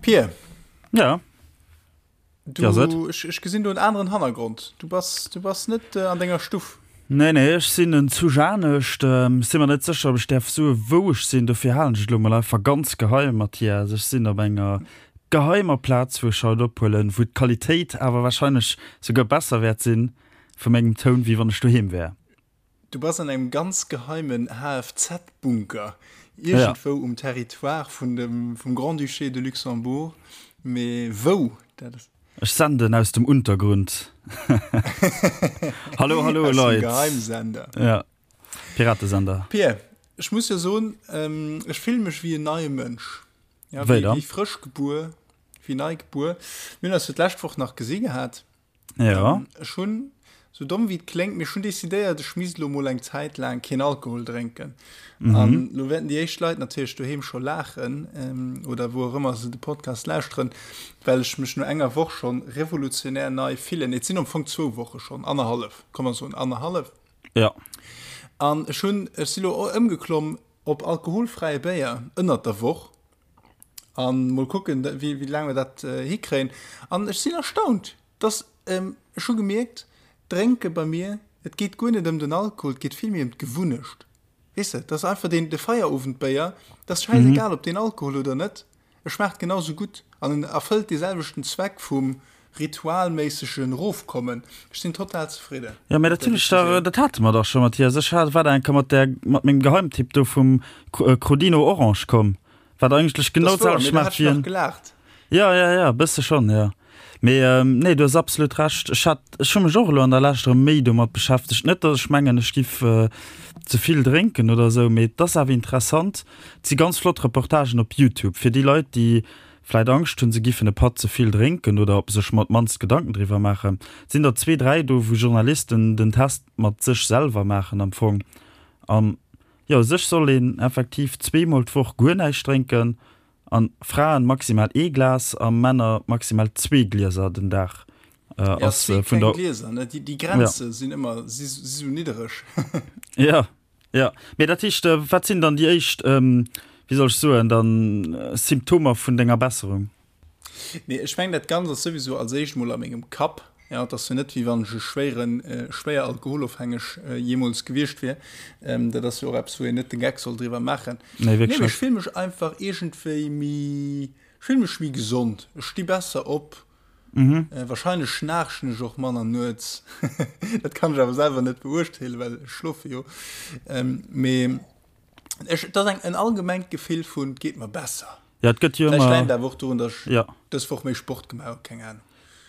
Pir. Ja. Du, ja, ech, ech gesinn do en aneren Hannergrond. Du bass, du bass net äh, an denger Stuff. Nee, nee, ech sinn en zu Janescht. Ähm, sinn mer net sécher, ob ech däerf soe wou ech sinn. Dofir halen ech et elo mol einfach ganz geheim, Mathias. Ech sinn op enger geheimer Plaz, wou ech haut ophuelen, wou d'Qualitéit awer wahrscheinlech souguer besser wäert sinn vu mengem Toun, wéi wann ech doheem wär. Du bass an engem ganz geheimen HFZ-Bunker, iergendwou um Territoire vun dem, vum Grand-Duché de Luxembourg, mee wou, dat ass. Ech senden aus dem Untergrund. Hallo, hallo Aus dem Leit. Geheimsender. Ja, Piratesender. Pir, ech muss jo soen, ech fille mech wéi en neie Mënsch. Ja, Wéi wéi, dann? wéi frësch gebuer, wéi nei gebuer. Mir hunn eis jo d'lescht Woch nach gesi gehat. Ja. Ähm, ech hunn, sou domm wéi et kléngt, mee ech hunn decidéiert, ech misst elo mol eng Zäit laang keen Alkohol drénken. Mhm. An lo wäerten déi éischt Leit natierlech doheem scho laachen, ähm, oder wou och ëmmer se de Podcast lauschteren, well ech mech no enger Woch schonn revolutionär nei fillen. Et sinn am Fong zwou Woche schonn, annerhallef, komm mer soen annerhallef. Ja. An ech hunn, ech si lo ëmgeklomm op alkoholfräie Béier ënnert der Woch. An mol kucken, wéi, wéi laang mer dat hikréien. An ech sinn erstaunt, dass, ech hu gemierkt, Drénke bei mir, et geet guer net ëm den Alkohol, et geet vill méi ëm d'Gewunnecht. Weess de, dass einfach deen, de Feierowendbéier, dat ass schäisegal, ob deen Alkohol huet oder net, e schmaacht genau sou gutt an en erfëllt dee selwechten Zweck vum ritualméissegen Erofkommen. Ech sinn total zefridde Jo, mä mat dat der hunn ech dach, Decisioun. dat hate mer dach scho, Mathias. Ech hat, war da eng Kéier mat där, mat mengem Geheimtipp do vum Crodino Orange komm. Wat eigentlech genau Das wouer, d'selwecht mee da schmaacht hat ech wéi nach en. gelaacht. Ja, ja, ja, e bësse schonn, jo. Mee ähm, nee, du hues absolut Recht. Ech hat, ech hu mech och elo an der Lescht erëm méi domat beschäftegt. Net, datt ech mengen, ech giff äh, ze vill drénken oder esou, mee et ass awer interessant. Et si ganz flott Reportagen op Youtube fir déi Leit, déi vläit Angscht hunn, se giffen e Patt ze vill drénken oder sech mat mannst Gedanken driwwer maachen. Et sinn der zwee, dräi do, wou Journalisten den Test mat sech selwer maachen am Fong. An Jo, u sech soll een effektiv zweemol d'Woch guer näischt drénken an Fraen maximal ee Glas a Männer maximal zwee Glieser den Dag Ja, ass zwee vun kleng der. Glieser, ne? Déi, déi Ja. Grenze sinn ëmmer, si si sou niddereg. Ja, ja. Mee dat heescht, wat sinn dann déi éischt, wéi soll ech soen, dann Symptomer vun denger Besserung? Nee, ech mengen, dat Ganzt ass souwisou als éischt mol a mengem Kapp. Ja, et ass jo net, wéi wann ech e schwéieren, schwéier alkoholofhängeg jeemools gewiescht wier. Dat ass jo och eppes, wou een net de Geck soll driwwer maachen. Nee, Nee, wierklech mee ech net. fill mech einfach iergendwéi méi, ech fill mech méi gesond. Ech sti besser op. Wahrscheinlech schnaarchen ech och manner nuets. Dat kann ech awer selwer net beurteelen, well ech schlofe jo. Mee ech, et ass eng, en allgemengt Gefill vun, et geet mer besser. Ja, et gëtt jo Vläicht ëmmer. läit et awer och dorun, datt ech Ja. dës Woch méi Sport gemaach hu, keng Ahnung.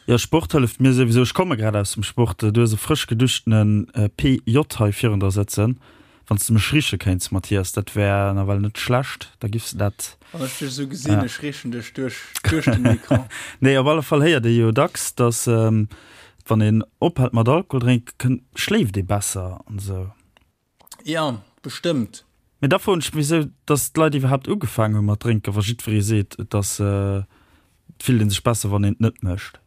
Jo, Sport hëlleft mir souwisou. Ech komme grad aus dem Sport. Du hues e frësch geduschtene PJ hei virun der sëtzen. Wann s de mech riche kéints, Mathias, dat wär nawell net schlecht. Da giffs de dat. Wann ech dech esou gesinn, ech richen dech duerch, duerch den Ecran. Nee, op alle Fall héiert ee jo dacks, datt wann een ophält mat Alkohol drénken, schléift ee besser an esou. Ja, bestëmmt. Mee da froen ech mech wisou dass d'Leit iwwerhaapt ugefaangen hu mat drénken, wa jiddweree seet, et ass, et fillt ee sech besser wann een et net mécht.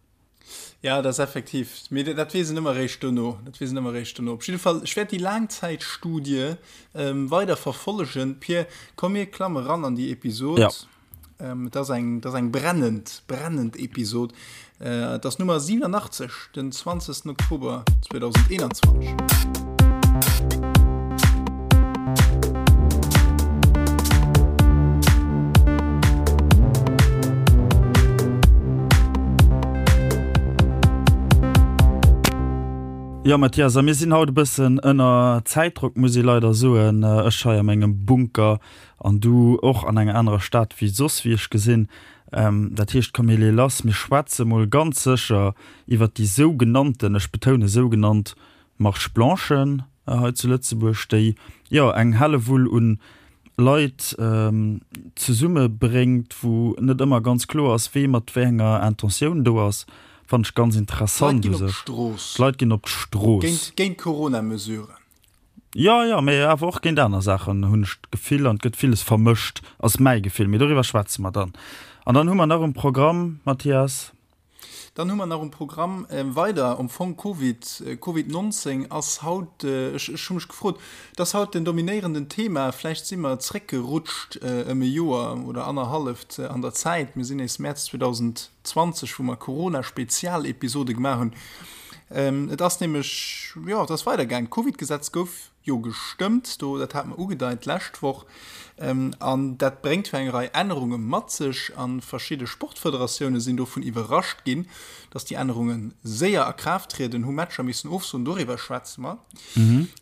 Ja, dat ass effektiv, mee dat weess een ëmmer eréischt dono, dat weess een ëmmer eréischt dono. Op jidde Fall, ech wäert déi Laangzäitstudie weider verfollegen. Pir, komm mir klamme ran an déi Episod. Ja. Et ass eng, et ass eng brennend, brennend Episod. Et ass Nummer 87, den 20. Oktober 2021. Jo Mathias, a mir sinn haut e bëssen ënner Zäitdrock, muss ee leider soen. Ech hei a mengem Bunker An du och an enger anerer Stad wéi soss, wéi ech gesinn. Dat heescht, komm mir leeë lass. Mir schwätze mol ganz sécher iwwert déi sougenannten, ech betoune sougenannt, Marche blanchen hei zu Lëtzebuerg, déi jo eng Hellewull un Leit zesummebréngt, wou net ëmmer ganz kloer ass, wee mat wéi enger Intentioun do ass. Fannen ech ganz D'Leit interessant ginn u op sech. d'Strooss. D'Leit ginn op d'Strooss. Géint, géint d'Corona-Mesuren. Jo, jo, mee awer och géint aner Saachen, hunn ech d'Gefill, an et gëtt villes vermëscht, ass mäi Gefill. Mee doriwwer schwätze mer dann. An dann hu mer nach um Programm, Mathias. Dann hu mer nach um Programm weider am Fong Covid, Covid 19 ass haut, ech ech hu mech gefrot, et ass haut den dominéierenden Thema, vläicht si mer zréckgerutscht ëm e Joer oder annerhalleft an der Zäit, mir sinn nees Mäerz 2020, wou mer Corona-Spezialepisode gemaach hunn. Et ass nämlech, jo, et ass weidergaangen, d'Covid-Gesetz gouf jo gestëmmt, do, dat hate mer ugedeit d'lescht Woch, an dat bréngt jo eng Rei Ännerunge mat sech a verschidde Sportfederatioune sinn dovun iwwerrascht ginn, datt déi Ännerunge séier a Kraaft trieden, hu Matcher missen ofsoen, doriwwer schwätze mer.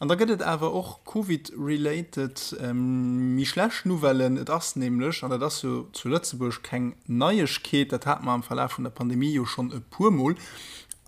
An da gëtt et awer och Covid-related méi schlecht Nouvellen. Et ass nämlech, an dat ass jo zu Lëtzebuerg keng Neiegkeet, dat hate mer am Verlaf vun der Pandemie jo schonn e puermol,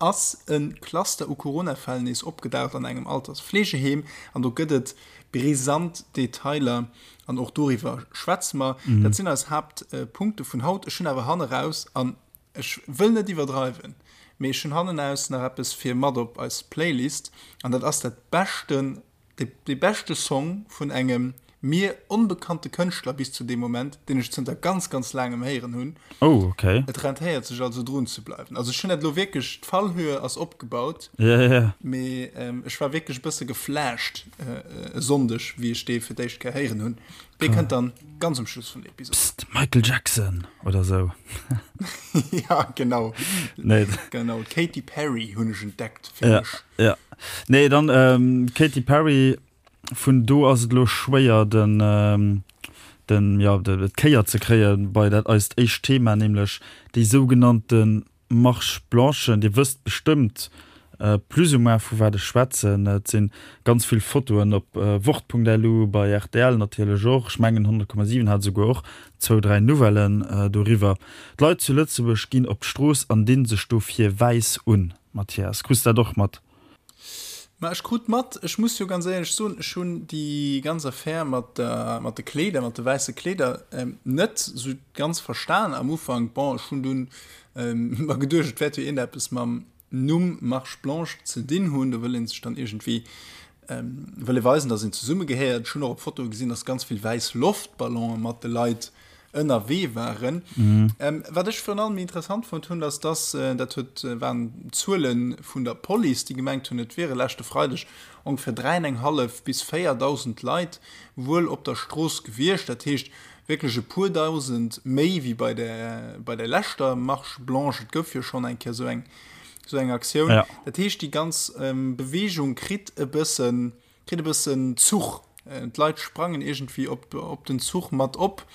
ass e Cluster u Corona-Fäll nees opgedaucht an engem Altersfleegeheem an do gëtt et brisant Detailer an och doriwwer schwätze mer. Dat sinn eis Haaptpunkte vun haut. Ech hunn awer hanneraus, an ech wëll net iwwerdreiwen, mee ech hunn hannenaus nach eppes fir mat op eis Playlist an dat ass dat beschten Dee beschte Song vun engem mir onbekannte Kënschtler bis zu deem Moment, deen ech zënter ganz, ganz laangem héieren hunn. Oh, okay. Et rentéiert sech also drun ze bleiwen. Also ech hunn dat elo wierklech, d'Fallhöhe ass opgebaut, Ja, ja, ja. mee ech war wierklech e bësse geflasht e Sonndeg, wéi ech dee fir d'éischt Kéier héieren hunn. Dee kënnt dann ganz um Schluss vun der Episod. Psst, Michael Jackson oder sou. Ja, genau. Nee. Genau, d'Katy Perry hunn ech entdeckt fir Ja, mech. ja. Nee, dann ähm, Katy Perry, vun do ass et elo schwéier den, ähm, den, ja, de, d'Kéier ze kréie bei dat eist éischt Thema, nämlech déi sougenannte Marche Blanche. Dir wësst bestëmmt plus ou moins vu wat ech schwätzen. Et si ganz vill Fotoen op Wort.lu, bei rtl natierlech och. Ech mengen 100,7 hat esouguer och zwou, dräi Nouvellen doriwwer. D'Leit zu Lëtzebuerg ginn op d'Strooss an dinn sech dofir wäiss un. Mathias, krus dat och mat? Ma ech krut mat, ech muss jo ganz éierlech soen, ech hunn déi ganz Affär mat der, mat de Kleeder, mat de wäisse Kleeder net esou ganz verstan am Ufank. Bon, ech hunn dunn mer geduecht, et wäert jo iergendeppes mam Numm Marche Blanche ze dinn hunn. Do wëll ee sech dann iergendwéi, wëll ee weisen, datt een zesummegehéiert. Ech hunn och op Fotoe gesinn, datt ganz vill wäiss Loftballonen mat de Leit ënnerwee waren. Wat ech virun allem interessant fonnt hunn, ass dass, dat huet, waren Zuele vun der Police, déi gemengt hunn, et wiere leschte Freideg ongeféier 3.500 bis 4.000 Leit wuel op der Strooss gewiescht. Dat heescht wierklech e puer Dausend méi wéi bei der, bei der leschter Marche blanche. Et gouf jo schonn eng Kéier esou eng, esou eng Aktioun. Dat heescht, déi ganz Beweegung kritt e bëssen, Kritt e bëssen Zuch. D'Leit sprangen iergendwéi op, op den Zuch mat op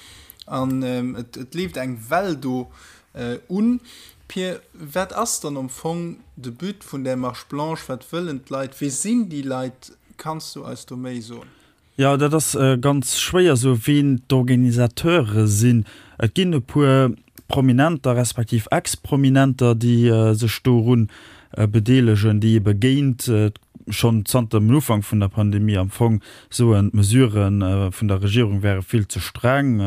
an et, et leeft eng Well do un. Pir, wat ass dann am Fong de But vun där Marche blanche? Wat wëllen d'Leit? Wie sinn déi Leit? Kanns du eis do méi soen? Jo, dat ass ganz schwéier sou, wien d'Organisateure sinn. Et ginn e puer Prominenter respektiv Ex-Prominenter, déi sech doru bedeelegen, déi ebe géint schonn zanter dem Ufank vun der Pandemie am Fong soen, d'Mesurë vun der Regierung wäre vill ze streng,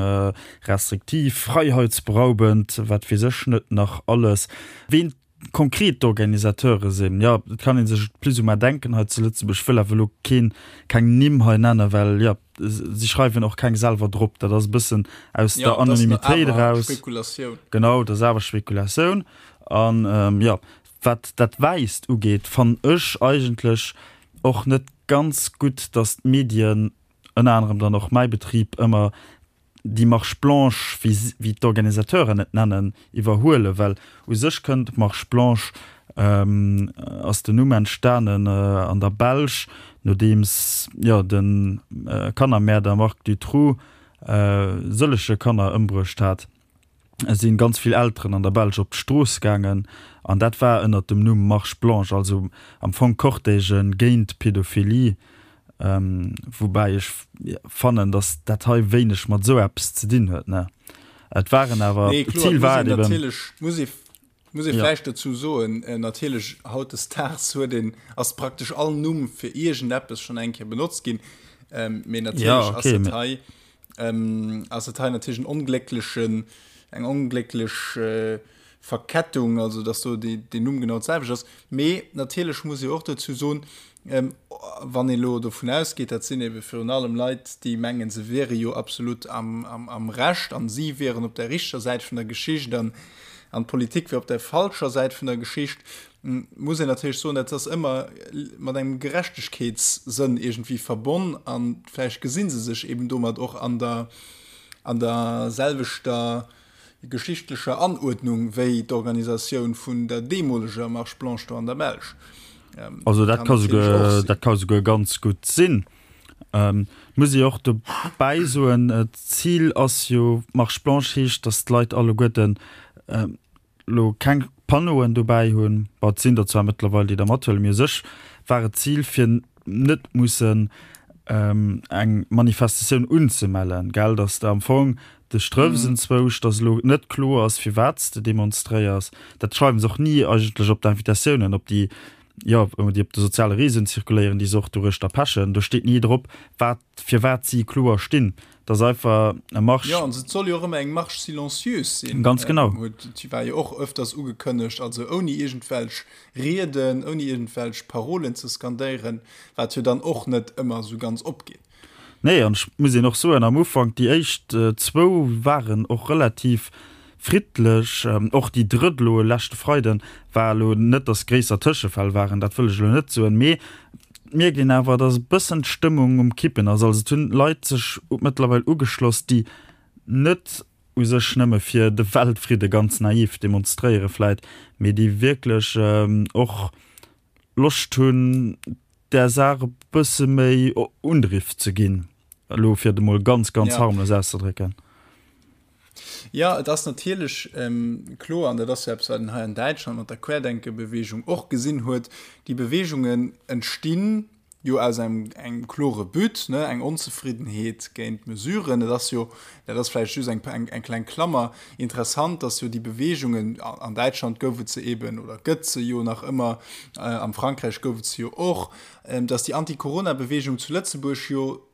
restriktiv, freiheitsberaubend, wat weess ech net nach alles. Ween konkret d'Organisateure sinn, jo, et kann ee sech et plus ou moins denken hei zu Lëtzebuerg. Ech wëll awer elo keen, keng Nimm hei nennen, well, jo, si schreiwen och keng selwer drop. Dat ass e bëssen aus der Anonymitéit eraus. Spekulatioun. Genau, dat ass awer Spekulatioun. An, jo, Wat dat Wäisst ugeet, fannen ech eigentlech och net ganz gutt, datt d'Medien, ënner anerem dann och mäi Betrib, ëmmer déi Marche blanche, wéi wéi d'Organisateuren et nennen, iwwerhuelen, well u sech kënnt d'Marche blanche, ass den Numm entstanen an der Belsch, nodeems, jo, de Kannermäerder Marc Dutroux sëllege Kanner ëmbruecht hat. sinn ganz vill Elteren an der Belsch op d'Strooss gaangen an dat war ënnert dem Numm Marche Blanche, also am Fong Cortègen géint Pädophilie, woubäi ech fannen, datt dat hei wéineg mat esou eppes ze dinn huet, ne? Et waren awer, Nee, kloer, d'Zil et muss war een et eben. natierlech, muss ee, muss ee Ja. vläicht dozou soen, natierlech hautdesdaags huet een, ass praktesch all Numm fir iergendeppes schonn eng Kéier benotzt ginn, mee Ja, natierlech ass okay, et mee. hei, Ass et hei natierlech en onglécklechen, eng onglécklech Verkettung, also datt do deen Numm genau d'selwecht ass. Mee natierlech muss ee och dozou soen, wann ee elo dovun ausgeet, dat sinn ebe virun allem Leit, déi mengen, se wiere jo absolut am Recht an si wieren op der richteger Säit vun der Geschicht an. An d'Politik wier op der falscher Säit vun der Geschicht, muss een natierlech soen, dat ass ëmmer mat engem Gerechtegkeetssënn iergendwéi verbonn a vläicht gesi se sech eben domat och an der, an der selwechter geschichtlecher Anuerdnung wéi d'Organisatioun vun der deemoleger Marche blanche do an der Belsch. Also dat ka souguer, dat ka souguer ganz gutt sinn. Muss ee och dobäi soen, d'Zil ass jo, Marche blanche heescht, datt d'Leit alleguerten elo keng Panneauen dobäi hunn. Bon, et sinn der zwar mëttlerweil, déi der mathuelen, mee u sech war et d'Zil, fir net mussen eng Manifestatioun unzemellen, gell, datt s de am Fong dech trëffs enzwousch, datt elo net kloer ass, firwat s de demonstréiers. Dat schreiwe se och ni eigentlech op d'Invitatiounen, op déi jo, déi op de soziale Reseauen zirkuléieren, déi se och doruechter pechen, do steet ni drop, wat, firwat si kloer stinn. Dat ass einfach e Marsch. Jo, an et soll jo och ëmmer eng Marche silencieuse sinn. Ganz genau. Huet, déi war jo och öfters ugekënnegt, also ouni iergendwelch Rieden, ouni iergendwelch Parolen ze skandéieren, wat jo dann och net ëmmer esou ganz opgeet. Nee, an ech muss een och soen, am Ufank, déi éischt zwou waren och relativ friddlech. Och déi drëtt elo e leschte Freiden war elo net, datt gréisser Tëschefäll waren, dat wëll ech elo net soen, mee et mierkt een awer, datt e bëssen d'Stëmmung um Kippen ass. Also et hunn Leit sech mëttlerweil ugeschloss, déi net u sech nëmme fir de Weltfridde ganz naiv demonstréiere vläit, mee déi wierklech och Loscht hunn, där Saach e bësse méi Undriff ze ginn, elo fir et emol ganz, ganz harmlos auszedrécken. Jo, et ass natierlech kloer, an dat ass jo eppes, wat een hei an Däitschland mat der Querdenke-Beweegung och gesinn huet, déi Beweegungen entstinn jo aus engem, engem klore But, ne, eng Onzefriddenheet géint d'Mesuren. Et ass jo, dat ass vläicht just eng, eng, eng kleng Klammer, interessant, dass jo déi Beweegungen, an Däitschland gouf et se eben oder gëtt se jo nach ëmmer, am Frankräich gouf et se jo och, dass déi Anti-Corona-Beweegung zu Lëtzebuerg jo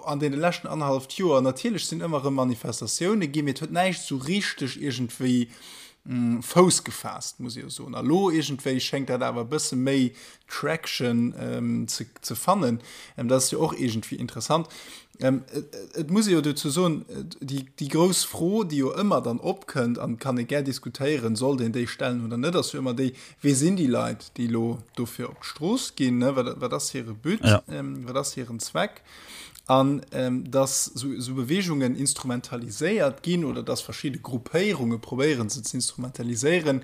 an deene leschten annerhalleft Joer, natierlech sinn ëmmer erëm Manifestatioune ginn, mee et huet näischt esou richteg iergendwéi Fouss gefaasst, muss ee jo soen. A lo iergendwéi schéngt dat awer e bësse méi Traction ze fannen. Dat ass jo och iergendwéi interessant. Et muss ee jo dozou soen, déi grouss Fro, déi jo ëmmer dann opkënnt, an kann ee gär diskutéieren, sollt een déi stellen oder net, ass jo ëmmer déi, Wie sinn déi Leit, déi elo dofir op d'Strooss ginn? Wat ass hire But? Wat ass hiren Zweck? An datt esou Beweegungen instrumentaliséiert ginn oder datt verschidde Gruppéierunge probéieren, se ze instrumentaliséieren,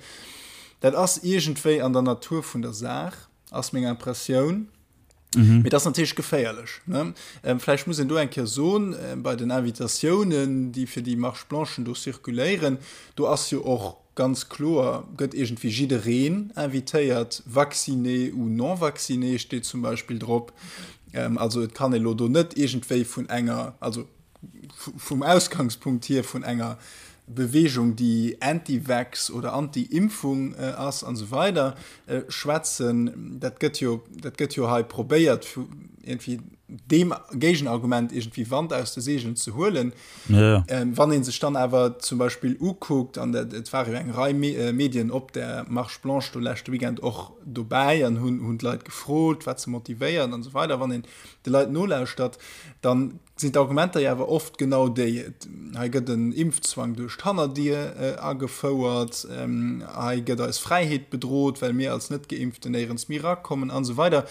dat ass iergendwéi an der Natur vun der Saach, ass meng Impressioun. Mhm. Mee dat ass natierlech geféierlech. Ne? Ähm, vläicht muss een do eng Kéier soen, äh, bei den Invitatiounen, déi fir déi Marche blanchen do circuléieren, do ass jo och ganz kloer, gëtt iergendwéi jiddereen invitéiert, vacciné ou non vacciné steet zum Beispill drop. Ähm, also et kann ee lo do net iergendwéi vun enger, also vum Ausgangspunkt hier vun enger Beweegung, déi anti-vax oder anti-Impfung ass an esou weider schwätzen. Dat gëtt jo, dat gëtt jo hei probéiert, iergendwéi deem Géigenargument iergendwéi Wand aus de Seegelen ze huelen. Ja. Wann ee sech dann awer zum Beispill ukuckt, an dat, et ware jo eng Rei Medien op där Marche blanche do leschte Weekend och dobäi an hunn, hunn d'Leit gefrot, wat se motivéiert an esou weider, wann een de Leit nolauschtert, dann sinn d'Argumenter jo awer oft genau déi, hei gëtt en Impfzwang duerch d'Hannerdier agefouert, hei gëtt eis Fräiheet bedrot, well mir als Net-Geimpften néierens méi erakommen an esou weider.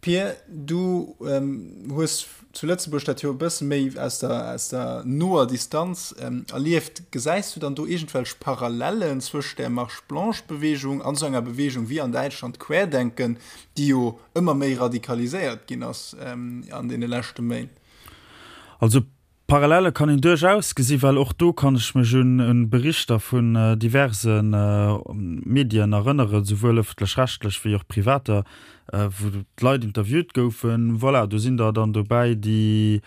Pir, du hues zu Lëtzebuerg dat jo e bësse méi aus der, aus der noer Distanz erlieft. Gesäis du dann do iergendwelch Parallellen zwëscht där Marche-blanche-Beweegung an esou enger Beweegung wéi an Däitschland Querdenken, déi jo ëmmer méi radikaliséiert ginn ass an deene leschte Méint. Also Parallele kann een duerchaus gesi well och do kann ech mech un Berichter vun diverse Medien erënneren, souwuel ëffentlech-rechtlech wéi och privater, wou d'Leit interviewt goufen. Voilà, do sinn der dann dobäi, déi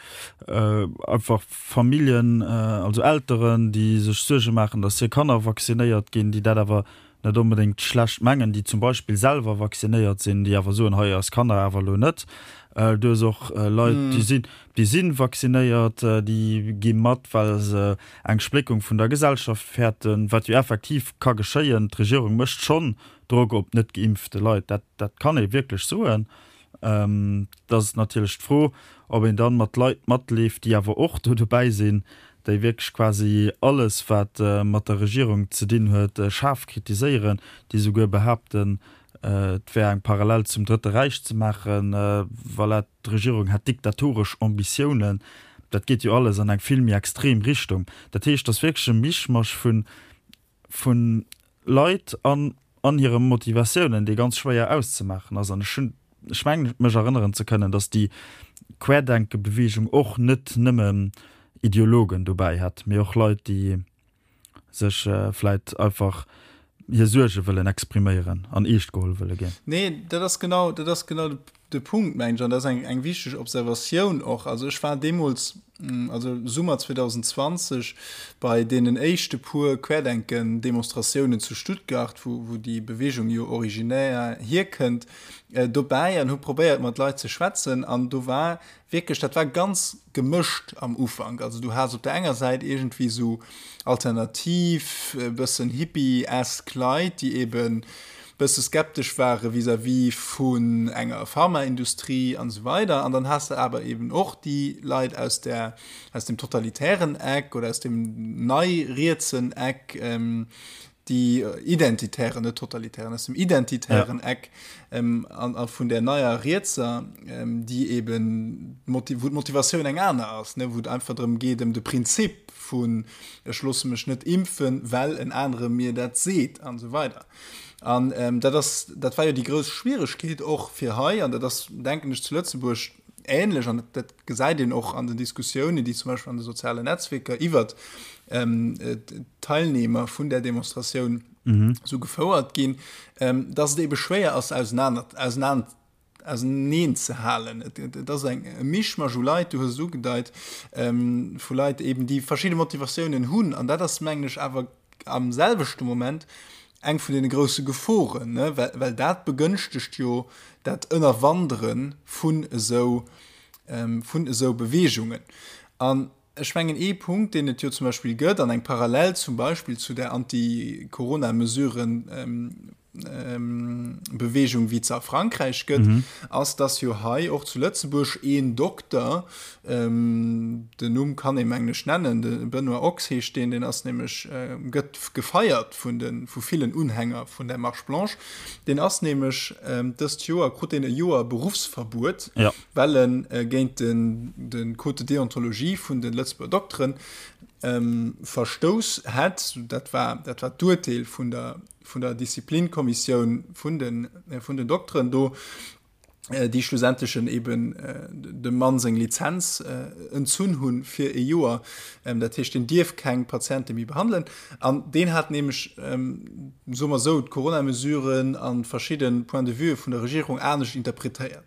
einfach Familljen, also Elteren, déi sech Suerge maachen, datt hir Kanner vaccinéiert ginn, déi dat awer net onbedéngt schlecht mengen, déi zum Beispill selwer vaccinéiert sinn, déi awer soen, hei eis Kanner awer elo net. Du hues och Leit, déi sinn, déi si vaccinéiert, déi gi mat, well se eng Spléckung vun der Gesellschaft fäerten, wat jo effektiv ka geschéien. D'Regierung mécht schonn Drock op net geimpfte Leit, dat, dat kann ee wierklech soen. Et ass natierlech d'Fro, ob een dann mat Leit matleeft, déi awer och do dobäi sinn. déi wierklech quasi alles, wat mat der Regierung ze dinn huet, schaarf kritiséieren, déi souguer behaapten, et wär eng Parallel zum Drëtte Räich ze maachen, voilà, d'Regierung hätt diktatoresch Ambitiounen. Dat geet jo alles an eng vill méi extrem Richtung. Dat heescht, et ass wierklech e Mischmasch vun vu Leit an an hire Motivatiounen, dee ganz schwéier auszemaachen ass. An ech hunn, ech mengen mech erënneren ze kënnen, datt déi Querdenke-Beweegung och net nëmme Ideologen dobäi hat, mee och Leit, déi sech vläit einfach hir Suerge wëllen expriméieren an eescht geholl wëlle ginn. Nee, dat ass genau, dat ass genau de Punkt, mengen ech, an dat ass eng, eng wichteg Observatioun och. Also ech war deemools, also Summer 2020, bei deenen éischte puer Querdenken-Demonstratiounen zu Stuttgart, wou, wou déi Beweegung jo originär hierkënnt, dobäi an hu probéiert, mat Leit ze schwätzen. An do war wierklech, dat war ganz gemëscht am Ufank. Also du has op der enger Säit iergendwéi esou alternativ, e bëssen hippie-esk Leit, déi eben bësse skeptesch ware vis-à-vis vun enger Pharmaindustrie an esou weider. An dann has de awer eben och déi Leit aus der, aus dem totalitären Eck oder aus dem nei-rietsen Eck, déi identitären, net totalitären, aus dem identitären ja. Eck ähm, an, an vun der neier Rietser, ähm, déi eben wou d'Motivatioun eng aner ass, ne, wou et einfach drëm geet ëm de Prinzip vun ech loosse mech net impfen, well en anere mir dat seet an esou weider. An ähm, dat ass, dat war jo déi grouss Schwieregkeet och fir hei, an dat ass denken ech zu Lëtzebuerg ähnlech, an dat gesäit een och an den Diskussiounen, déi zum Beispill an de sozialen Netzwierker iwwert d'Teilnehmer vun där Demonstratioun esou gefouert ginn, dass et ebe schwéier ass, auseneen ze halen. Et ass eng e Mischmasch u Leit, du hues et ugedeit, vu Leit eben, déi verschidde Motivatiounen hunn. An dat ass, mengen ech, awer am selwechte Moment eng vun deene grousse Geforen, ne, well, well dat begënschtegt jo dat Ënnerwandere vun esou, vun esou Beweegungen. An ech mengen, ee Punkt, deen et jo zum Beispill gëtt, an eng Parallel zum Beispill zu där Anti-Corona-Mesuren, Beweegung wéi et se a Frankräich gëtt, ass, dass jo hei och zu Lëtzebuerg een Dokter, den Numm kann ee mengen ech nennen, de Benoît Ochs heescht deen, deen ass nämlech, gëtt gefeiert vun de vu villen Unhänger vun der Marche Blanche, deen ass nämlech dëst Joer, krut deen e Joer Beruffsverbuet, well e géint den de Code de déontologie vun de Lëtzebuerger Dokteren verstouss hätt. Dat war dat war d'Urteel vun der vun der Disziplinkommissioun vun den, vun den Dokteren do, déi schlussendlechen eben dem Mann seng Lizenz entzunn hunn fir e Joer. Dat heescht, deen dierf keng Patiente méi behandelen. An deen hat nämlech, soe mer esou, d'Corona-Mesuren a verschidde Points de vue vun der Regierung anescht interpretéiert.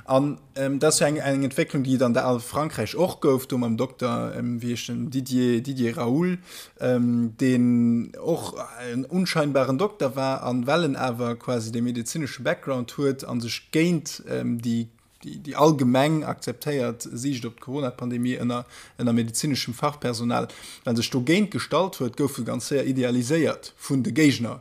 An dat ass jo eng, eng Entwécklung, déi et an der a Frankräich och gouf, do mam Dokter, wéi heescht en, Didier, Didier Raoult, deen och en unscheinbaren Dokter war, an well en awer quasi dee medezinesche Background huet a sech géint déi déi allgemeng akzeptéiert Siicht op d'Corona-Pandemie ënner ënner medezineschem Fachpersonal, well en sech dogéint gestallt huet, gouf e ganz séier idealiséiert vun de Géigner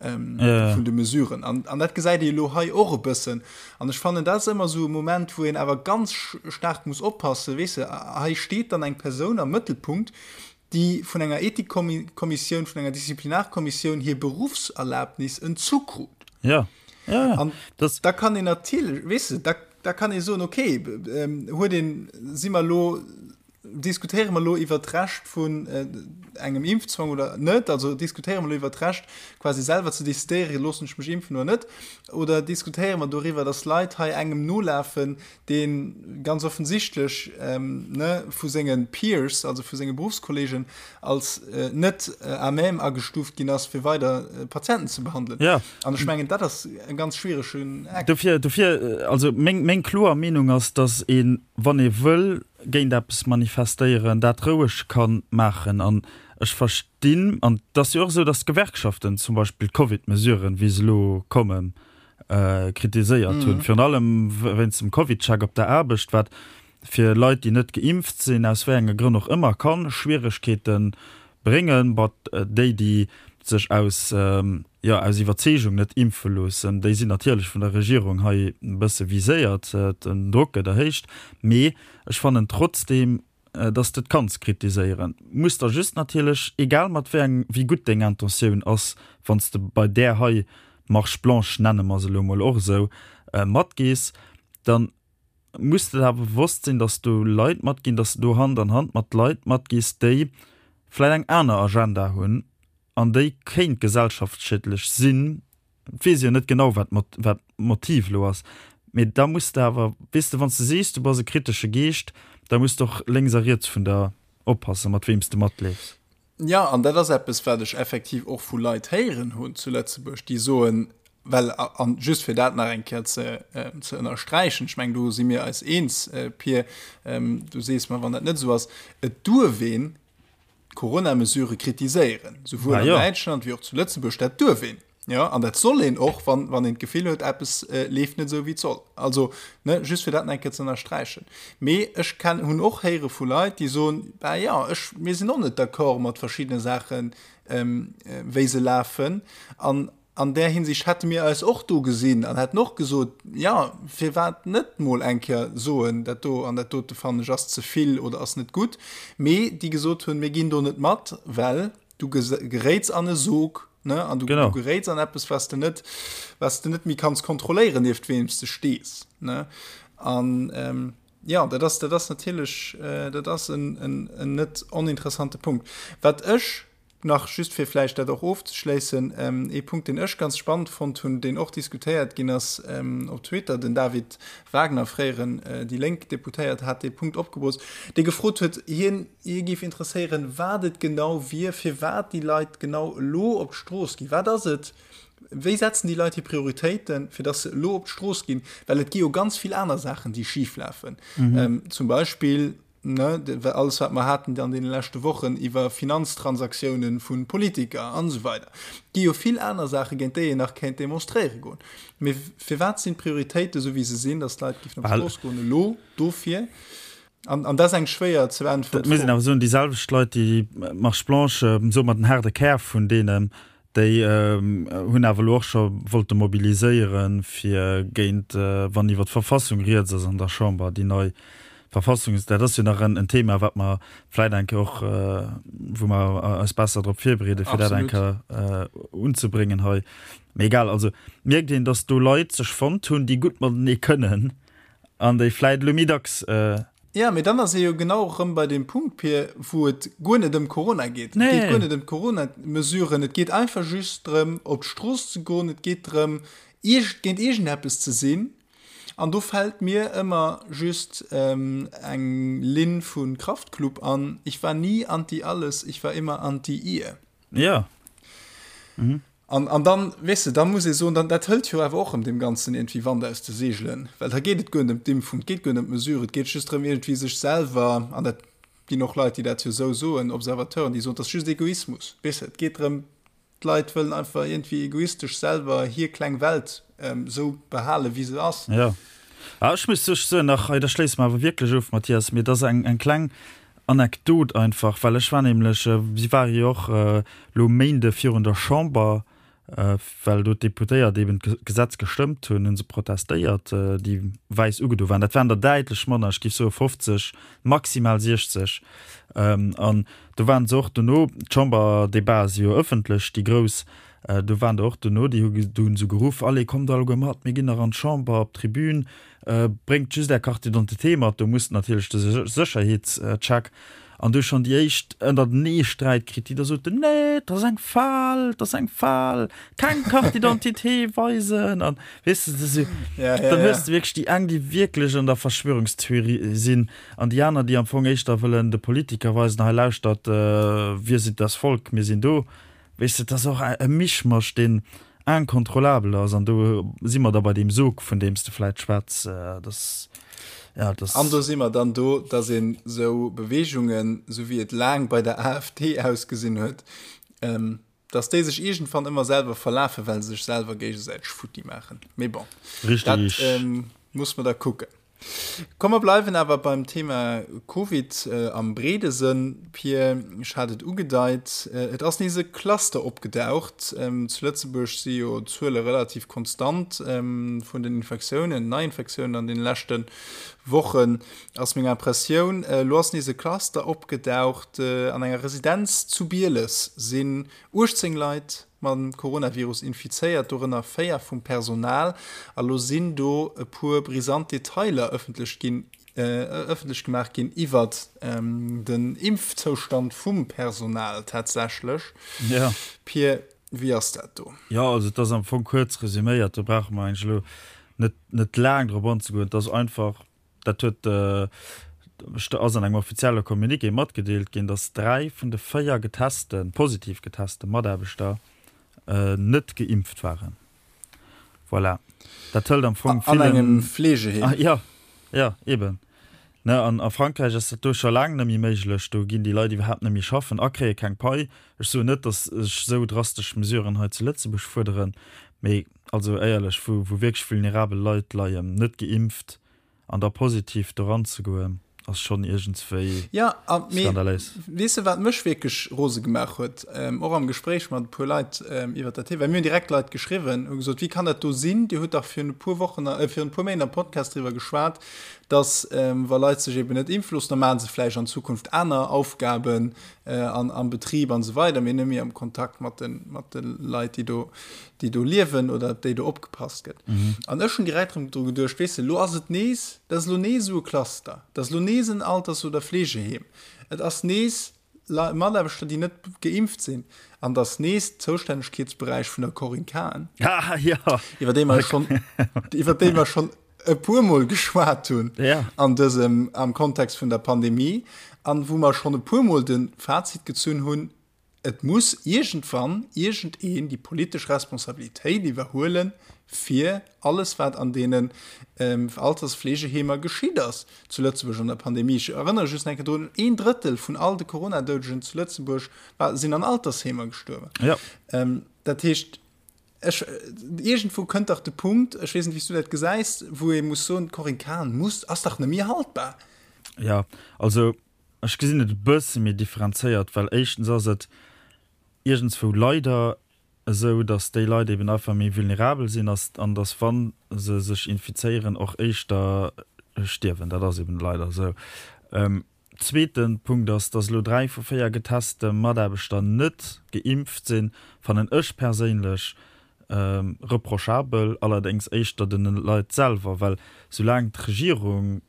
vun de Mesuren. An an dat gesäit ee elo hei och e bëssen. An ech fannen, dat ass ëmmer esou e Moment, wou een awer ganz staark muss oppassen, weess de, hei steet dann eng Persoun am Mëttelpunkt, déi vun enger Ethikkommissioun, vun enger Disziplinarkommissioun hir Beruffserlaabnis entzu krut. Ja. Ja, ja. An das da kann een natierlech, weess de, da, da kann ee soen, okay, ähm, huet een, si mer elo, diskutéiere mer elo iwwer d'Recht vun äh, engem Impfzwang oder net, also diskutéiere mer elo iwwer d'Recht, quasi selwer ze decidéieren, loossen ech mech impfen oder net, oder diskutéiere mer doriwwer, dass Leit hei engem nolafen, dee ganz offensichtlech ne vu senge Peers, also vu senge Beruffskollegen, als net à même agestuuft ginn ass, fir weider Patienten ze behandelen. Ja. An ech mengen, dat ass e ganz schwieregen Eck. Dofir, dofir, also meng, meng kloer Meenung ass, datt een, wann ee wëll géint eppes manifestéieren, dat roueg ka maachen. An ech verstinn, an et ass jo och esou, datt d'Gewerkschaften zum Beispill d'Covid-Mesuren, wéi se elo kommen, kritiséiert hunn, virun allem wéinst dem Covid-Check op der Aarbecht, wat fir Leit, déi net geimpft sinn, aus wéi enge Grënn och ëmmer, ka Schwieregkeete bréngen. Bon, déi, déi sech aus, jo, aus Iwwerzeegung net impfe loossen, déi sinn natierlech vun der Regierung hei e bësse viséiert, den Drock gëtt erhéicht. Mee ech fannen trotzdeem. dass de et kanns kritiséieren. Muss der just natierlech, egal mat wéi eng, wéi gutt deng Intentioun ass, wann s de bei där hei Marche blanche, nenne mer se elo emol och esou, matgees, dann muss de der awer bewosst sinn, dass do Leit matginn, dass de do Hand an Hand mat Leit matgees, déi vläicht eng aner Agenda hunn an déi kéint gesellschaftsschiedlech sinn. Et weess ee jo net genau, wat wat d'Motiv elo ass, mee da muss de awer, weess de, wann s de sees, du bass e kritesche Geescht, da muss de och lénks a riets vun der oppassen, mat weem s de matleefs. Jo, an dat ass eppes, wat ech effektiv och vu Leit héieren hunn zu Lëtzebuerg, déi soen, well, an just fir dat nach eng Kéier ze ze ënnersträichen, ech mengen, do si mir eis eens, Pir, du sees mer, wann dat net esou ass, et duerf een d'Corona-Mesurë kritiséieren, souwuel an Däitschland wéi och zu Lëtzebuerg, dat duerf een. Jo, an dat soll een och, wann, wann een d'Gefill huet, eppes leeft net esou, wéi et soll. Also, ne, just fir dat nach eng Kéier ze ënnersträichen. Mee ech ken, hunn och héiere vu Leit, déi soen, Bah jo, ech, mir sinn och net d'accord mat verschiddene Saachen, wéi se lafen. An an där Hinsicht hätte mir eis och do gesinn an hätten och gesot, Jo, firwat net mol eng Kéier soen, dat do an dat dote fannen ech ass ze vill oder ass net gutt. Mee déi gesot hunn, Mir ginn do net mat, well du geréits an e Sog, ne, an du, du geréits an eppes, was de net, was de net méi kanns kontrolléieren, nieft weem s de stees, ne. An ähm, ja, dat ass, dat ass natierlech, äh, dat ass en, en, en net oninteressante Punkt. Wat ech nach just fir vläicht dat och ofzeschléissen, ähm, ee Punkt, deen ech ganz spannend fonnt hunn, deen och diskutéiert ginn ass ähm, op Twitter, den David Wagner, fréieren äh, déi Lénk Deputéiert, hat dee Punkt opgebroocht, dee gefrot huet, hien, Hie géif interesséieren, wat et genau wier, firwat déi Leit genau elo op d'Strooss ginn. Wat ass et, wéi setzen déi Leit hir Prioritéiten, fir datt se elo op d'Strooss ginn? Well et gi jo ganz vill aner Saachen, déi schif lafen. Zum Beispill, ne, alles wat mer haten an deene leschte Wochen iwwer Finanztransaktiounen vu Politiker an esou weider. Et gi jo vill aner Saachen, géint déi een nach kéint demonstréiere goen. Mee firwat sinn d'Prioritéiten esou, wéi se sinn, datt d'Leit géifen op d'Strooss goen elo dofir? An, an dat ass eng schwéier ze beäntweren Fro. Mir sinn awer soen, déi selwecht Leit, déi d'Marche blanche, soe mer den haarde Kär vun deenen, déi hunn awer elo och scho wollte mobiliséieren, fir géint, wann iwwer d'Verfassung rieds ass an der Chamber, déi nei Verfassung, dat ass jo nach en Thema, wat mer vläit eng Kéier och, wou mer eis besser drop virbereeden, fir dat eng Kéier unzebréngen hei. Mee egal, also mierkt een, datt do Leit sech fonnt hunn, déi gutt matenee kënnen An déi vläit elo méi dacks. Jo, mee dann ass ee jo genau erëm bei deem Punkt, Pir, wou et guer net ëm Corona geet. Et geet guer net ëm d'Corona-Mesuren, et geet einfach just drëm, op d'Strooss ze goen, et geet drëm, iergend, géint iergendeppes ze sinn. An do fält mir ëmmer just eng Linn vu Kraftklub an, Ich war nie anti alles, ich war immer anti ihr. Jo. An, an dann, weess de, da muss ee soen, dann, dat hëlt jo awer och erëm deem Ganzen iergendwéi Wand aus de Seegelen, well da geet et guer net ëm d'Impfung, et geet guer net ëm d'Mesure, et geet just drëm, iergendwéi sech selwer, an dat ginn och Leit, déi dat jo esou soen, Observateuren, déi soen, et ass just Egoismus, weess de, et geet drëm, d'Leit wëllen einfach iergendwéi egoistesch selwer hir kleng Welt esou behalen, wéi se ass. Jo. Ah, ech muss sech soen, nach hei, da schléisse mer awer wierklech of, Mathias, mee et ass eng, eng kleng Anekdot einfach, well ech war nämlech, si ware jo och elo Méinde virun der Chamber, well do d'Deputéiert eben d'Gesetz gestëmmt hunn, hu se protestéiert, déi wäiss ugedo waren. Dat waren der däitlech manner, ech géif soe 50, maximal 60. An do waren se och dono, d'Chamberdebate si jo ëffentlech, déi grouss, do waren der och dono, déi hu do hu se geruff, Allez, kommt alleguer mat, mir ginn nach an d'Chamber op d'Tribün. Bréngt just är Carte d'identité mat, do musst natierlech de Sécherheetscheck. An du schonn déi éischt ënnertenee Sträit kritt, déi da soten, Nee, et ass eng Fal, et ass eng Fal, keng Carte d'identité weisen. An weess de, esou, dann hues de wierklech déi eng, déi wierklech an der Verschwörungstheorie sinn, an déi aner, déi am Fong éischter wëllen de Politiker weisen, Hei lauschtert, wir sind das Volk, mir sinn do. Weess de, et ass och e Mischmasch, deen incontrôlable ass an do si mer da bei deem Sog, vun deem s de vläit schwätz, dass, ja, dass. An do si mer dann do, dass een esou Beweegungen, esou wéi et laang bei der AfD ausgesinn huet, dass déi sech iergendwann ëmmer selwer verlafen, well se sech selwer géigesäiteg futti maachen. Mee bon, dat muss mer da kucken. Komm mer bleiwen awer beim Thema Covid am breede Sënn. Pir, ech hat et ugedeit, et ass nees e Cluster opgedaucht. Zu Lëtzebuerg si jo d'Zuele relativ konstant vun den Infektiounen, Neiinfektiounen an deene leschte Wochen, ass meng Impressioun. Elo ass nees e Cluster opgedaucht. An enger Residenz zu Bieles sinn 18 Leit mam Coronavirus infizéiert, dorënner 4 vum Personal. A lo sinn do e puer brisant Detailer ëffentlech ginn, ëffentlech gemaach ginn iwwert den Impfzoustand vum Personal tatsächlech. Ja. Pir, wéi ass dat do? Jo, also et ass am Fong kuerz resuméiert, do brauche mer eigentlech elo net, net laang drop anzegoen. Et ass einfach, Dat huet ass an engem offizielle Communiqué matgedeelt ginn, datt 3 vun de 4 getesten, positiv geteste Mataarbechter net geimpft waren. Voilà. Dat hëlt am Fong villen. An engem Fleegeheem. Ah, ja, ja, eben. Ne, an a Frankräich ass dat do scho laang net méi méiglech. Do ginn déi Leit iwwerhaapt net méi schaffen a kréie keng Pai. Ech soen net, datt ech esou drastesch Mesuren hei zu Lëtzebuerg fuerderen, mee also éierlech, wou wou wierklech vulnerabel Leit leien, net geimpft, An da positiv doran ze goen, ass schonn iergendswéi Ja, a mee skandaléis. weess de, wat mech wierklech rose gemaach huet, och am Gespréich mat e puer Leit iwwert dat Thema, well mir hunn direkt Leit geschriwwen, hu gesot, wéi kann dat do sinn, Dir hutt dach virun e puer Wochen, virun e puer Méint am Podcast driwwer geschwat, dass wa Leit sech eben net impfe loossen, da maache se vläicht an Zukunft aner Aufgaben an am Betrib an esou weider, mee net méi am Kontakt mat de mat de Leit, déi do déi do liewen oder op déi do opgepasst gëtt. An ech hunn direkt erëm dru geduecht, weess de, elo ass et nees, dat ass elo nees esou e Cluster, dat ass elo nees en Alters oder Fleegeheem, et ass nees Mataarbechter, déi net geimpft sinn, an et ass nees Zoustännegkeetsberäich vun der Corinne Cahen, iwwer déi mer schonn, iwwer déi mer schonn e puermol geschwat hunn an dësem, am Kontext vun der Pandemie, an wou mer schonn e puermol de Fazit gezunn hunn, Et muss iergendwann iergendeen déi politesch Responsabilitéit iwwerhuelen, fir alles, wat an deenen Altersfleegeheemer geschitt ass zu Lëtzebuerg an der Pandemie. Ech erënnere just nach eng Kéier drun, Een Drëttel vun all de Corona-Doudegen zu Lëtzebuerg sinn an Altersheemer gestuerwen. Dat heescht, ech, iergendwou kënnt dach de Punkt, ech weess net, wéi s du dat gesäis, wou ee muss soen, d'Corinne Cahen muss, ass dach net méi haltbar. Jo, also Ech gesinn et e bësse méi differenzéiert, well éischtens ass et iergendswou leider esou, datt déi Leit eben einfach méi vulnerabel sinn an datt, wa se sech infizéieren, och éischter stierwen. Dat ass eben leider esou. Zweete Punkt ass, datt elo 3 vu 4 geteste Mataarbechter net geimpft sinn, fannen ech perséinlech reprochabel, allerdéngs éischter de Leit selwer, well soulaang d'Regierung,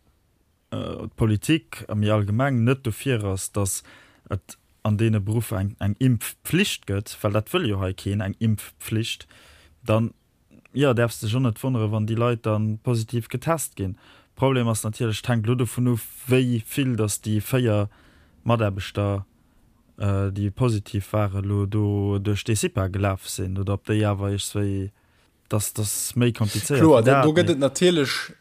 d'Politik a méi allgemeng net dofir ass, datt et an deene Beruffer eng eng Impfpflicht gëtt, well dat wëll jo hei keen, eng Impfpflicht, dann, jo, däerfs dech och net wonneren, wann déi Leit da positiv getest ginn. Problem ass natierlech, et hänkt elo dovun of, wéi vill datt déi 4 Mataarbechter, déi positiv waren, elo do duerch dee CIPA gelaf sinn oder ob déi awer iergswéi, dass ass méi komplizéiert Kloer, wéi dat, do gëtt et natierlech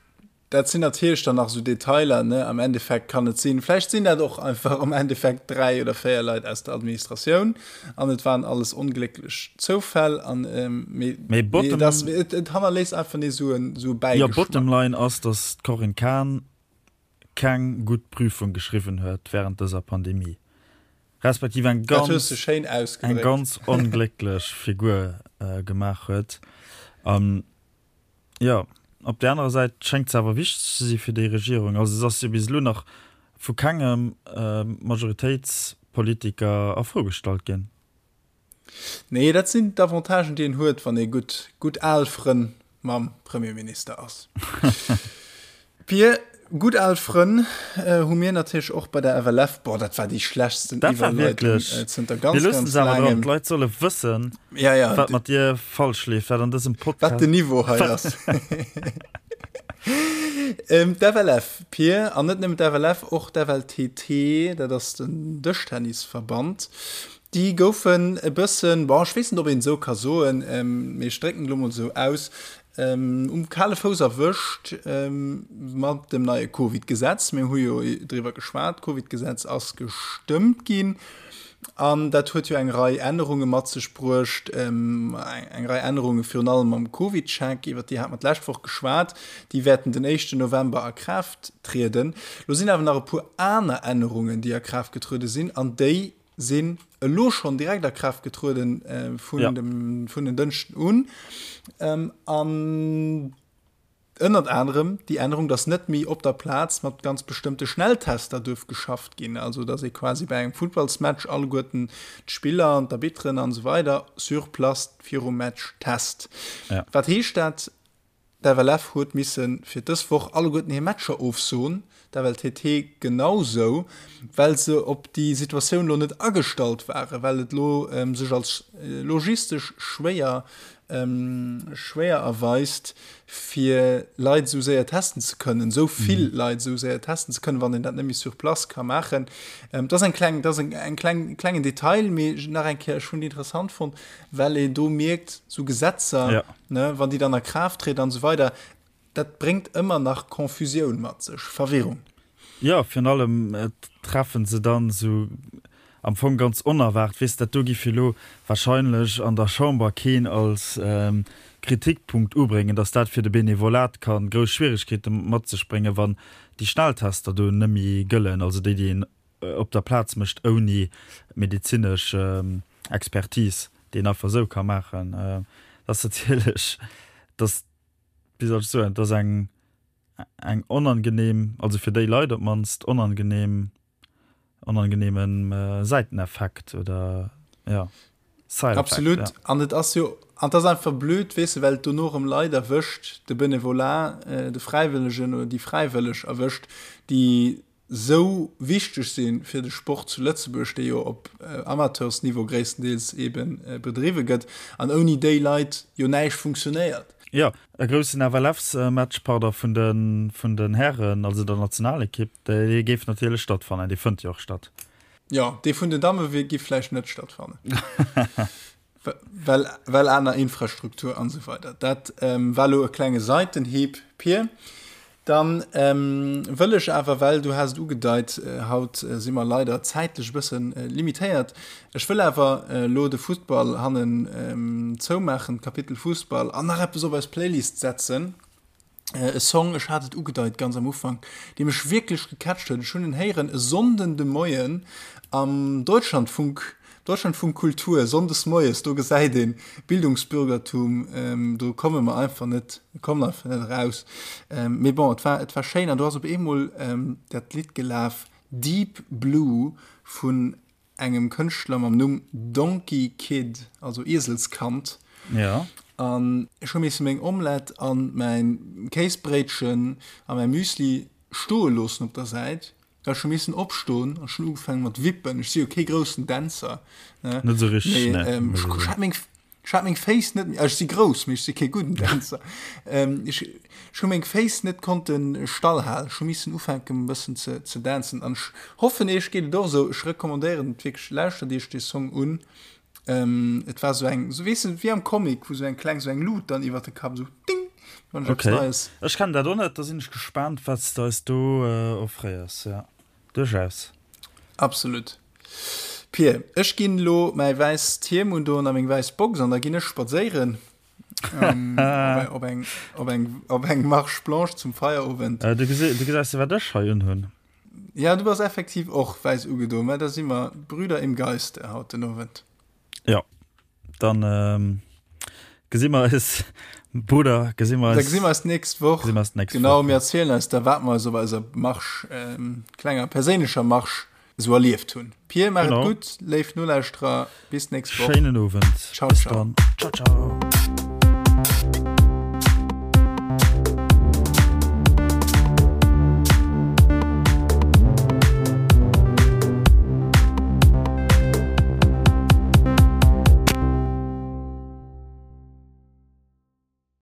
Dat sinn natierlech dann nach esou Detailer, ne? Am Endeffekt kann et sinn, vläicht sinn dat och einfach am Endeffekt 3 oder 4 Leit aus der Administratioun an et waren alles onglécklech Zoufäll an mee, Mee bottom, et ass, et, et hannerléisst einfach nees esou en, esou e Jo, Bäigeschmack. bottom line ass, dass d'Corinne Cahen keng gutt Prüfung geschriwwen huet während dëser Pandemie, respektiv eng Dat hues ganz, de schéin eng ausgedréckt. ganz onglécklech Figur gemaach huet. An Jo, op där anerer Säit schéngt se awer wichteg ze si fir déi Regierung. Also se ass jo bis elo nach vu kengem Majoritéitspolitiker a Fro gestallt ginn. Nee, dat sinn d'Avantagen, déi een huet, wann ee gutt, gutt al Frënn mam Premierminister ass. Pir, Gutt al Frënn hu mir natierlech och bei der FLF. Boah, dat war déi schlechtsten Dat war Iwwerleitung wierklech. zënter Mir ganz, loossen ganz se awer dran. laangem. D'Leit solle wëssen, Ja, ja, wat mat dir falsch leeft, wat an dësem wat Podcast. den Niveau hei ass. D'FLF, Pir, an net nëmmen d'FLF, och d'FLTT, dat ass den Dëschtennisverband, déi goufen e bëssen, bon, ech weess net, ob een esou ka soen, mee ech drécken et elo mol esou aus, Um kale Fouss erwëscht mat dem neie Covid-Gesetz. Mir hu jo driwwer geschwat, d'Covid-Gesetz ass gestëmmt ginn. An dat huet jo eng Rei Ännerunge mat sech bruecht, eng Rei Ännerunge virun allem am CovidCheck, iwwert déi hate mer d'lescht Woch geschwat. Déi wäerten den éischten November a Kraaft trieden. Lo sinn awer nach e puer aner Ännerungen, déi a Kraaft getruede sinn, an déi sinn elo schonn direkt a Kraaft getrueden vun dem, vun en Dënschden un. An Ënnert anerem déi Ännerung, dass net méi op der Plaz mat ganz bestëmmte Schnelltester duerf geschafft ginn, also dass ee quasi bei engem Futtballsmatch alleguerten d'Spiller an d'Arbitteren an esou weider sur place virum Match test. Ja. Wat heescht dat? D'FLF huet misse fir dës Woch alleguerten hir Matcher ofsoen, d'FLTT genau sou, well se op déi Situatioun elo net agestallt waren, well et elo sech als logistesch schwéier schwéier erweist, fir Leit esou séier testen ze kënnen, esou vill Leit esou séier testen ze kënnen, wann een dat net méi sur place ka maachen. Dat ass eng kleng, dat ass eng kleng, klengen Detail, mee nach eng Kéier, ech hunn déi interessant fonnt, well een do mierkt, esou Gesetzer, ne, wann déi dann a Kraaft trieden an esou weider, Dat bréngt ëmmer nach Confusioun mat sech, Verwirrung. Jo, virun allem treffen se dann esou am Fong ganz onerwaart, weess, dat do giff elo wahrscheinlech an der Chamber keen als Kritikpunkt ubréngen, datt dat fir de Benevolat ka grouss Schwieregkeete mat sech bréngen, wann déi Schnelltester do nëmmi gëllen, also déi, déi een op der Plaz mécht ouni medezinesch Expertise, déi een einfach esou ka maachen. Dat ass natierlech, datt wéi soll ech soen, et ass eng, eng onangenehm, also fir déi Leit op d'mannst onangenehm, onangenehmen Säiteneffekt oder ja, Side Effect. Absolut. Ja. An et ass jo, an et ass einfach blöd, weess de, well et dono erëm Leit erwëscht, de Benevolat, de Fräiwëllegen oder déi Fräiwëlleg erwëscht, déi sou wichteg si fir de Sport zu Lëtzebuerg, dee jo op Amateursniveau gréisstendeels eebe bedriwwe gëtt, an ouni déi Leit jo näischt funktionéiert. Jo, e groussen FLFs-Match, pardon, vun de vun den Hären, also der Nationalekipp, dee géif natierlech stattfannen, dee fënnt jo och statt. Jo, dee vun den Damme géif vläicht net stattfannen. Well, well aner Infrastruktur an esou weider. Dat ähm, war lo e klenge Seitenhieb, Pir. Dann ähm, wëll ech awer, well du has et ugedeit, äh, haut äh, si mer leider zäitlech e bëssen äh, limitéiert. Ech wëll awer äh, lo de Fussball hannen ähm, zoumaachen, d'Kapitel Fussball, an nach eppes op eis Playlist setzen. E Song, ech hat et ugedeit ganz am Ufank, dee mech wierklech gecatcht huet. Ech hunn en héieren e Sonnden de Moien am Deutschlandfunk, Deutschlandfunk Kultur, sonndes moies, do gesäit een Bildungsbürgertum, do komme mer einfach net, kommen einfach net eraus. Mee bon, et war, et war schéin an do ass op eemol dat Lidd gelaf, Deep Blue vun engem Kënschtler mam Numm Donkey Kid, also Ieselskand. Ja. An ech hu misse meng Omelette an mäin Kéisbréitchen a mäi Müsli stoe loossen op der Säit, well ech hu missen opstoen an ech hunn ugefaange mat wippen. Ech si jo kee groussen Dänzer, ne? Net esou richteg, ne. Mee ech hat meng Ech hat meng Féiss net méi, ech si grouss, mee ech si kee gudden Dänzer. Ech ech hu meng Féiss net konnte stall halen. Ech hu missen ufänken e bëssen ze ze dancen an ech hoffen iech geet et och esou. Ech recommandéieren et wierklech, lauschtert iech dee Song un. Et war esou eng, esou weess de wéi am Comic, wou esou eng kleng, esou eng Lut dann iwwert de Kapp esou ding, wann ech eppes Neies. Ech kennen dat och net, da sinn ech gespaant wat s de eis do offréiers, jo. Duerchaus. Absolut. Pir, ech ginn elo mäi wäisst Hiem undoen a meng wäiss Box an da ginn ech spadséieren op eng, op eng, op eng Marche blanche zum Feierowend. Du gesäis jo, wat ech hei unhunn. Ja, du bass effektiv och wäiss ugedoen, mä da si mer Brüder im Geiste haut den Owend. Jo, dann gesi mer eis, Brudder, gesi mer eis. Da gesi mer eis d'nächst Woch. Gesi mer eis d'nächst Woch. Genau, mir erzielen eis da, wat mer eis op eiser Marsch, klenger perséinlecher Marsch, esou erlieft hunn. Pir, maach et gutt, léif Nolauschterer, bis d'nächst Woch. Schéinen Owend. Ciao, ciao. Bis dann. Ciao, ciao.